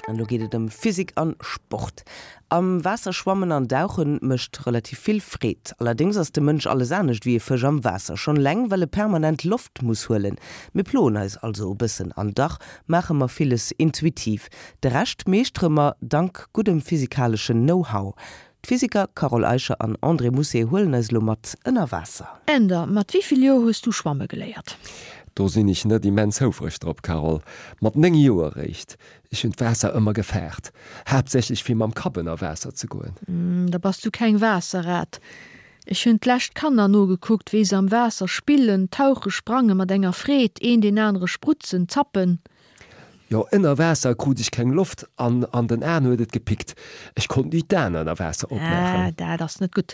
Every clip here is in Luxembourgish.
An elo geet et ëm Physik an Sport. Am Waasser schwammen an dauchen mécht relativ vill Freed. Allerdéngs ass de Mënsch alles anescht wéi e Fësch am Waasser. Schonn eleng well e permanent Loft muss huelen. Mir ploen eis also e bëssen an dach maache mer villes intuitiv. De Rescht meeschtere mer dank guddem physikaleschen Know-how. D'Physiker Carole Eicher an André Mousset huelen eis elo mat ënner Waasser. Änder, mat wéi vill Joer hues du schwamme geléiert? Do sinn ech net immens houfreg drop, Carole. Mat 9 Joer eréischt. Ech hunn d'Waasser ëmmer gefaart, haaptsächlech fir mam Kapp ënner Waasser ze goen. Da bass du keng Waasserrat. Ech hunn d'lescht Kanner nogekuckt, wéi se am Waasser spillen, tauche, sprange mat enger Freed, een deen anere sprutzen, zappen. Jo, ënner Waasser krut ech keng Loft an an den Aen huet et gepickt. Ech konnt ni d'Aen ënner Waasser opmaachen. Ah, dat ass net gutt.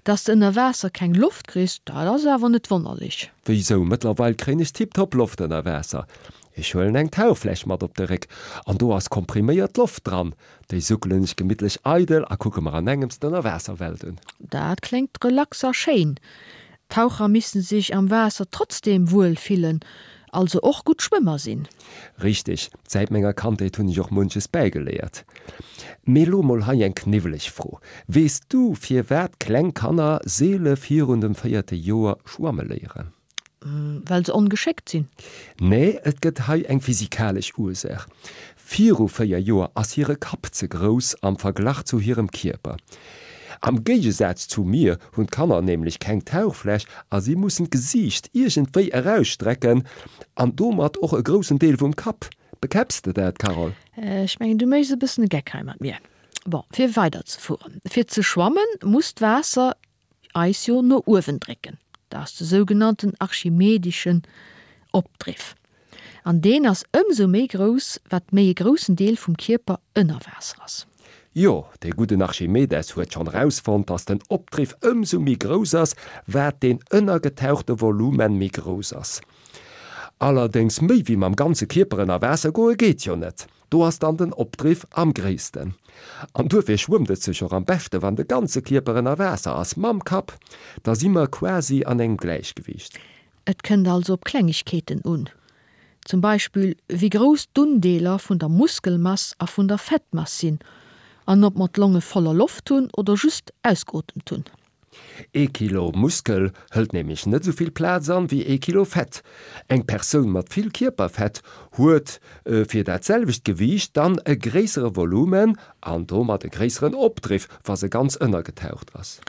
Dass de ënner Waasser keng Loft kriss, dat ass awer net wonnerlech. Wéisou? Mëttlerweil kréien ech tiptop Loft ënner Waasser. Ech huelen eng Tauchfläsch mat op de Réck an do ass kompriméiert Loft dran. Déi suckelen ech gemittlech eidel a kucke mer an engems d'Ënnerwaasserwelt un. Dat kléngt relax a schéin. Taucher missten sech am Waasser trotzdem wuel fillen, also och gutt Schwëmmer sinn. Richteg, säit menger Kandheet hunn ech och munches bäigeléiert. Mee lo mol hei eng kniwweleg Fro, Weess du firwat kleng Kanner seele virun dem véierte Joer schwamme léieren? Well se ongeschéckt sinn? Nee, et gëtt hei eng physikalesch Ursaach. Viru 4 Joer ass hire Kapp ze grouss am Verglach zu hirem Kierper. Am Géigesaz zu mir hunn d'Kanner nämlech keng Tauchfläsch a si mussen d'Gesiicht iergendwéi erausstrecken an domat och e groussen Deel vum Kapp. Bekäpps de dat, Carole? Ech mengen, du méchs e bëssen e Geck hei mat mir. Bon, fir weiderzefueren, Fir ze schwammen, muss d'Waasser eis jo no uewen drécken. Dat ass de sougenannten archimedischen Opdriff. An deen ass ëmsou méi grouss, wat méi e groussen Deel vum Kierper ënner Waasser ass. Jo, dee gudden Archimedes huet schonn erausfonnt, dass den Opdriff ëmsou méi grouss ass, wat deen ënnergetauchte Volumen méi grouss ass. Allerdéngs méi wéi mam ganze Kierper ënner Waasser goe geet jo net. Do ass dann den Opdriff am gréissten. An duerfir schwëmmt et sech och am beschte wann de ganze Kierper ënner Waasser ass, mam Kapp. Da si mer quasi an engem Gläichgewiicht. Et kënnt also op Klengegkeeten un, zum Beispill wéi grouss d'Undeeler vun der Muskelmass a vun der Fettmass sinn an ob mer d'Longe voller Loft hunn oder just ausgeotemt hunn. Ee Kilo Muskel hëlt nämlech net esou vill Plaz an wéi ee Kilo Fett. Eng Persoun mat vill Kierperfett huet fir dat selwecht Gewiicht dann e gréissere Volumen an domat e gréisseren Opdriff, wa se ganz ënnergetaucht ass.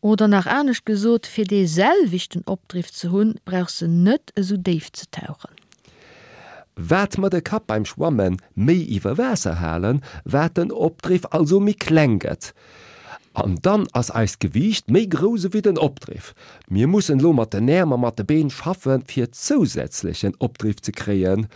Oder nach anescht gesot, fir dee selwechten Opdriff ze hunn, brauchs de net esou déif ze tauchen. Wat mer de Kapp beim Schwamme méi iwwer Waasser halen, wat den Opdriff also méi kleng gëtt. An dann ass eist Gewiicht méi grouss ewéi den Opdriff. Mir mussen elo mat den Äerm a mat de Been schaffen, fir zousätzlechen Opdriff ze kréien.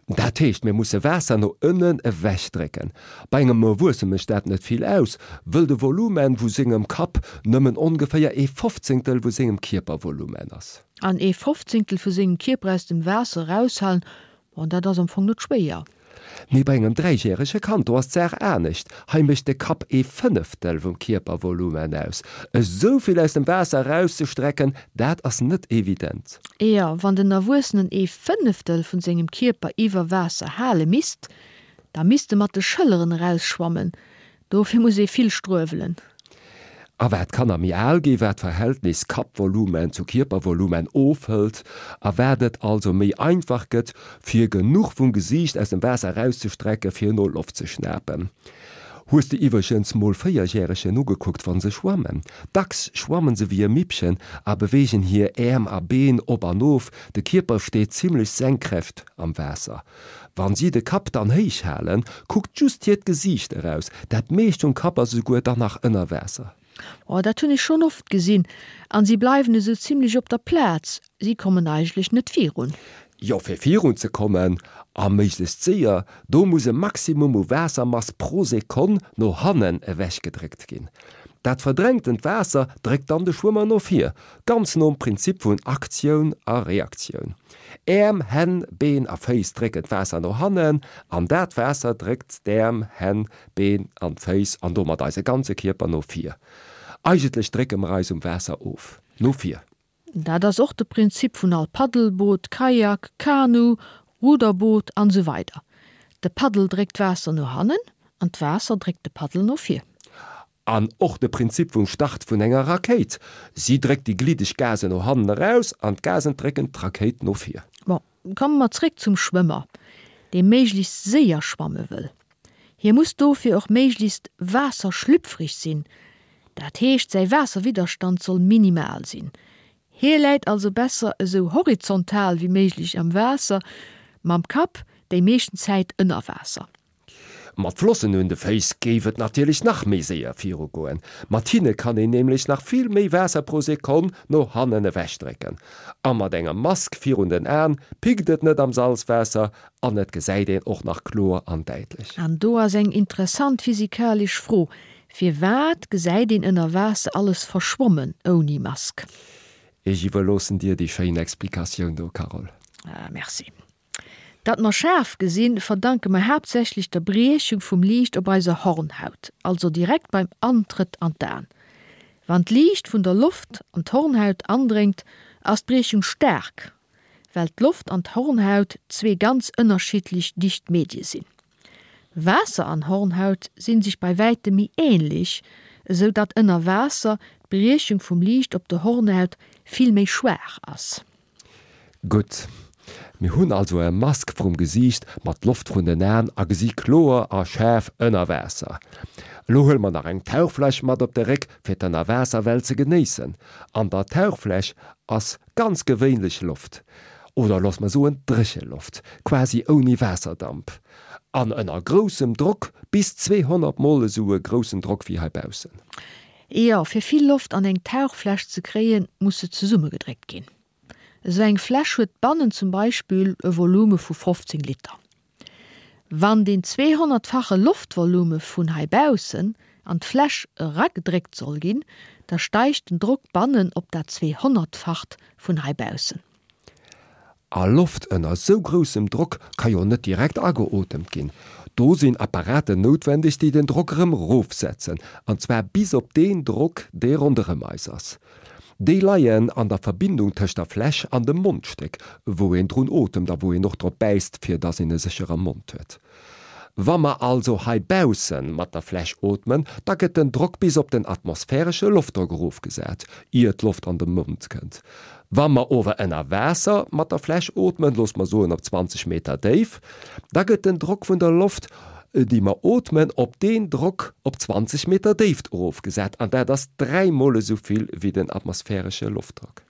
Dat heescht, mir musse Waasser no ënnen ewech drécken. Bei engem Erwuesse mécht dat net vill aus, wëll de Volumen vu sengem Kapp nëmmen ongeféier ee Fofzéngtel vu sengem Kierpervolumen ass. An ee Fofzéngtel vu sengem Kierper aus dem Waasser eraushalen, bon, dat ass am Fong net schwéier. Mee bei engem dräijärege Kand, do ass d'Saach anescht, hei mécht de Kapp ee Fënneftel vum Kierpervolumen aus. Esou vill aus dem Waasser erauszestrecken, dat ass net evident. Jo, wann den Erwuessenen ee Fënneftel vun sengem Kierper iwwer Waasser hale misst, da misst e mat de Schëlleren erausschwammen. Dofir muss ee vill struewelen. A wat d'Kanner méi al ginn, wat d'Verhältnis Kappvolumen zu Kierpervolumen ofhëlt a wat et also méi einfach gëtt, fir genuch vum Gesiicht aus dem Waasser erauszestrecke fir no Loft ze schnapen. Hues de iwwregens mol Véierjäregen ugekuckt wann se schwammen? Dacks schwammen se wéi e Mippchen a beweegen hir Äerm a Been op an of, de Kierper steet zimmlech senkrecht am Waasser. Wann si de Kapp dann héich halen, kuckt just hiert Gesiicht eraus, dat meescht vum Kapp ass esouguer dann nach ënner Waasser. Oh, dat hunn ech schonn oft gesinn. An si bleiwen esou zimlech op der Plaz, si kommen eigentlech net virun. Jo, fir virun ze kommen, a méiglechst séier, do muss e Maximum u Waassermass pro Sekonn no hannen ewech gedréckt ginn. Dat verdrängtent Waasser dréckt dann de Schwëmmer no vir, ganz nom Prinzip vun Aktioun a Reaktioun. Äerm, Hänn, Been a Féiss drécken d'Waasser no hannen an dat Waasser dréckt d'Äerm, Hänn, Been an d'Féiss an domat eise ganze Kierper no vir. Eigentlech drécke mer eis um Waasser of, no vir. Dat ass och de Prinzip vun all Paddelboot, Kajak, Kanu, Ruderboot an esou weider. De Paddel dréckt d'Waasser no hannen an d'Waasser dréckt de Paddel no vir. An och de Prinzip vum Start vun enger Rakéit, Si dréckt déi gliddeg Gasen no hannen eraus an d'Gasen drécken d'Rakéit no vir. Bon, komme mer zréck zum Schwëmmer, dee méiglechst séier schwamme wëll. Hie muss dofir och méiglechst waasserschlüpfrig sinn, dat heescht säi Waasserwidderstand soll minimal sinn. Hie läit also besser esou horizontal wéi méiglech am Waasser, mam Kapp déi meeschten Zäit ënner Waasser. Mat Flossen un de Féiss géif et natierlech nach méi séier virugoen. Mat hinne kann een nämlech nach vill méi Waasser pro Sekonn no hannen ewechdrécken. A mat enger Mask virun den Aen pickt et net am Salzwaasser an et gesäit een och nach kloer an däitlech. An do ass eng interessant physikalesch Fro, Firwat gesäit een ënner Waasser alles verschwommen ouni Mask? Ech iwwerloossen dir déi schéin Explikatioun do, Carole. Ah, merci. Datt mer schaarf gesinn, verdanke mer haaptsächlech der Briechung vum Liicht op eiser Hornhaut, also direkt beim Antrëtt an d'Aen. Wann d'Liicht vun der Loft an d'Hornhaut andréngt, ass d'Briechung staark, well d'Loft an d'Hornhaut zwee ganz ënnerschiddlech dicht Medie sinn. Waasser an Hornhaut sinn sech bei wäitem méi ähnlech, esou datt ënner Waasser d'Briechung vum Liicht op der Hornhaut vill méi schwaach ass. Gutt, mir hunn also e Mask vrum Gesiicht mat Loft vrun den Aen a gesi kloer a schaarf ënner Waasser. Elo huele mer nach eng Tauchfläsch mat op de Réck fir d'Ënnerwaasserwelt ze genéissen. An der Tauchfläsch ass ganz gewéinlech Loft, oder looss mer soen dréche Loft, quasi ouni Waasserdamp, an ënner groussem Drock, bis 200 mol esou e groussen Drock wéi hei baussen. Jo, fir vill Loft an eng Tauchfläsch ze kréien, muss se zesummegedréckt ginn. Esou eng Fläsch huet bannen zum Beispill e Volume vu 15 Liter. Wann deen 200-fache Loftvolume vun hei baussen an d'Fläsch eragedréckt soll ginn, da steigt den Drock bannen op dat 200-facht vun hei baussen. A Loft ënner sou groussem Drock ka jo net direkt ageotemt ginn. Do sinn Apparaten noutwendeg, déi den Drock erëm rofsetzen, an zwar bis op deen Drock, dee ronderëm eis ass. Déi leien an der Verbindung tëscht der Fläsch an dem Mondstéck, wou een drun otemt a wou een och drop bäisst, fir dass een e sécher am Mond huet. Wa mer also hei bausse mat der Fläsch ootmen, da gëtt den Drock bis op den atmosphäresche Loftdrock erofgesat, ier d'Loft an de Mond kënnt. Wa mer ower ënner Waasser mat der Fläsch ootmen, looss mer soen op 20 Meter Déif, da gëtt den Drock vun der Loft, déi mer ootmen, op deen Drock op 20 Meter Déift erofgesat, an dat ass dräimol esou vill wéi den atmosphäresche Loftdrock.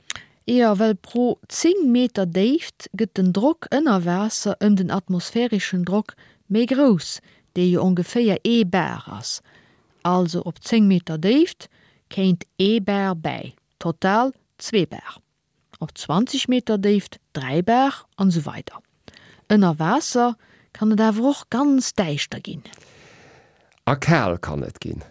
Jo, well pro 10 Meter Déift gëtt den Drock ënner Waasser ëm den atmosphäreschen Drock méi grouss, dee jo ongeféier ee Bar ass. Also op 10 Meter Déift kéint ee Bar bäi, total zwee Bar. Op 20 Meter Déift 3 Bar an esou weider. Ënner Waasser kann et awer och ganz däischter ginn. A kal kann et ginn.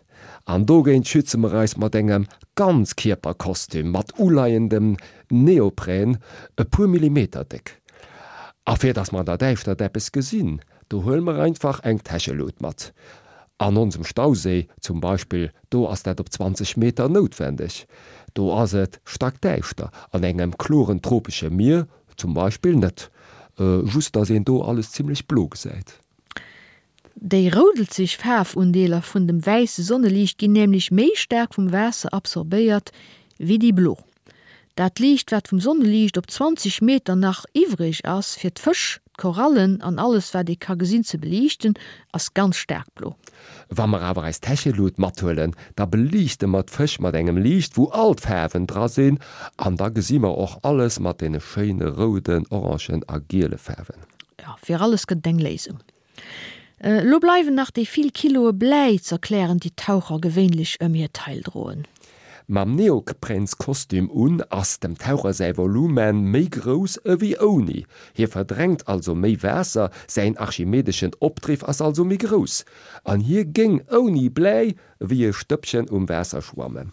An dogéint schütze mer eis mat engem Ganzkierperkostüm mat uleiendem Neoprän, e puer Millimeter déck. A fir dass mer an der Däischtert eppes gesinn, do huele mer einfach eng Täschelut mat. An onsem Stauséi zum Beispill, do ass dat op 20 Meter noutwendeg. Do ass et stackdäischter. An engem kloren tropesche Mier zum Beispill net. Just dass een do alles zimmlech blo gesäit. Déi roudelzeg Faarfundeeler vun dem wäisse Sonneliicht ginn nämlech méi staark vum Waasser absorbéiert wéi déi blo. Dat Liicht wat vum Sonneliicht op 20 Meter nach iwwreg ass fir d'Fësch, d'Korallen an alles wat ee ka gesinn ze beliichten, ass ganz staark blo. Wa mer awer eis Täschelut mathuelen, da beliichte mer d'Fësch mat engem Liicht wou all d'Faarwen dra sinn an da gesi mer och alles mat deene schéine rouden, orangen a giele Faarwen. Jo, fir alles gëtt et eng Léisung. Elo bleiwen nach déi vill Kiloe Bläi z'erklären, déi d'Taucher gewéinlech ëm hir Taille droen. Mam Neopränskostüm un ass dem Taucher säi Volumen méi grouss ewéi ouni. Hie verdrängt also méi Waasser, säin archimedeschen Opdriff ass also méi grouss. An hie géing ouni Bläi ewéi e Stëppchen um Waasser schwammen.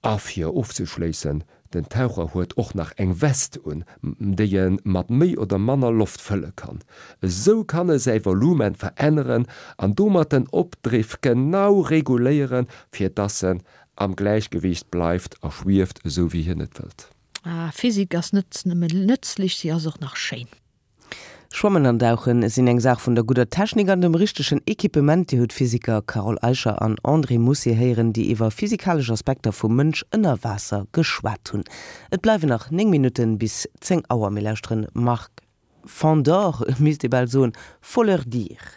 A fir ofzeschléissen, den Taucher huet och nach eng West un, déi e mat méi oder manner Loft fëlle kann. Esou kann e säi Volumen veränneren an domat den Opdriff genau reguléieren, fir dass en am Gläichgewiicht bleift a schwieft, esou wéi hien et wëllt. Ah, Physik ass net nëmmen nëtzlech, si ass och nach schéin. Schwammen an Dauchen sinn eng Saach vun der gudder Technik an dem richtegen Equipement. Dir hutt d'Physiker Carole Eicher an André Moussier héieren, déi iwwer physikalesch Aspekter vum Mënsch ënner Waasser geschwat hunn. Et bleiwen nach 9 Minutten bis 10 Auer. Mir lauschteren Marc Fandor, misst ee bal soen, Faut leur dire.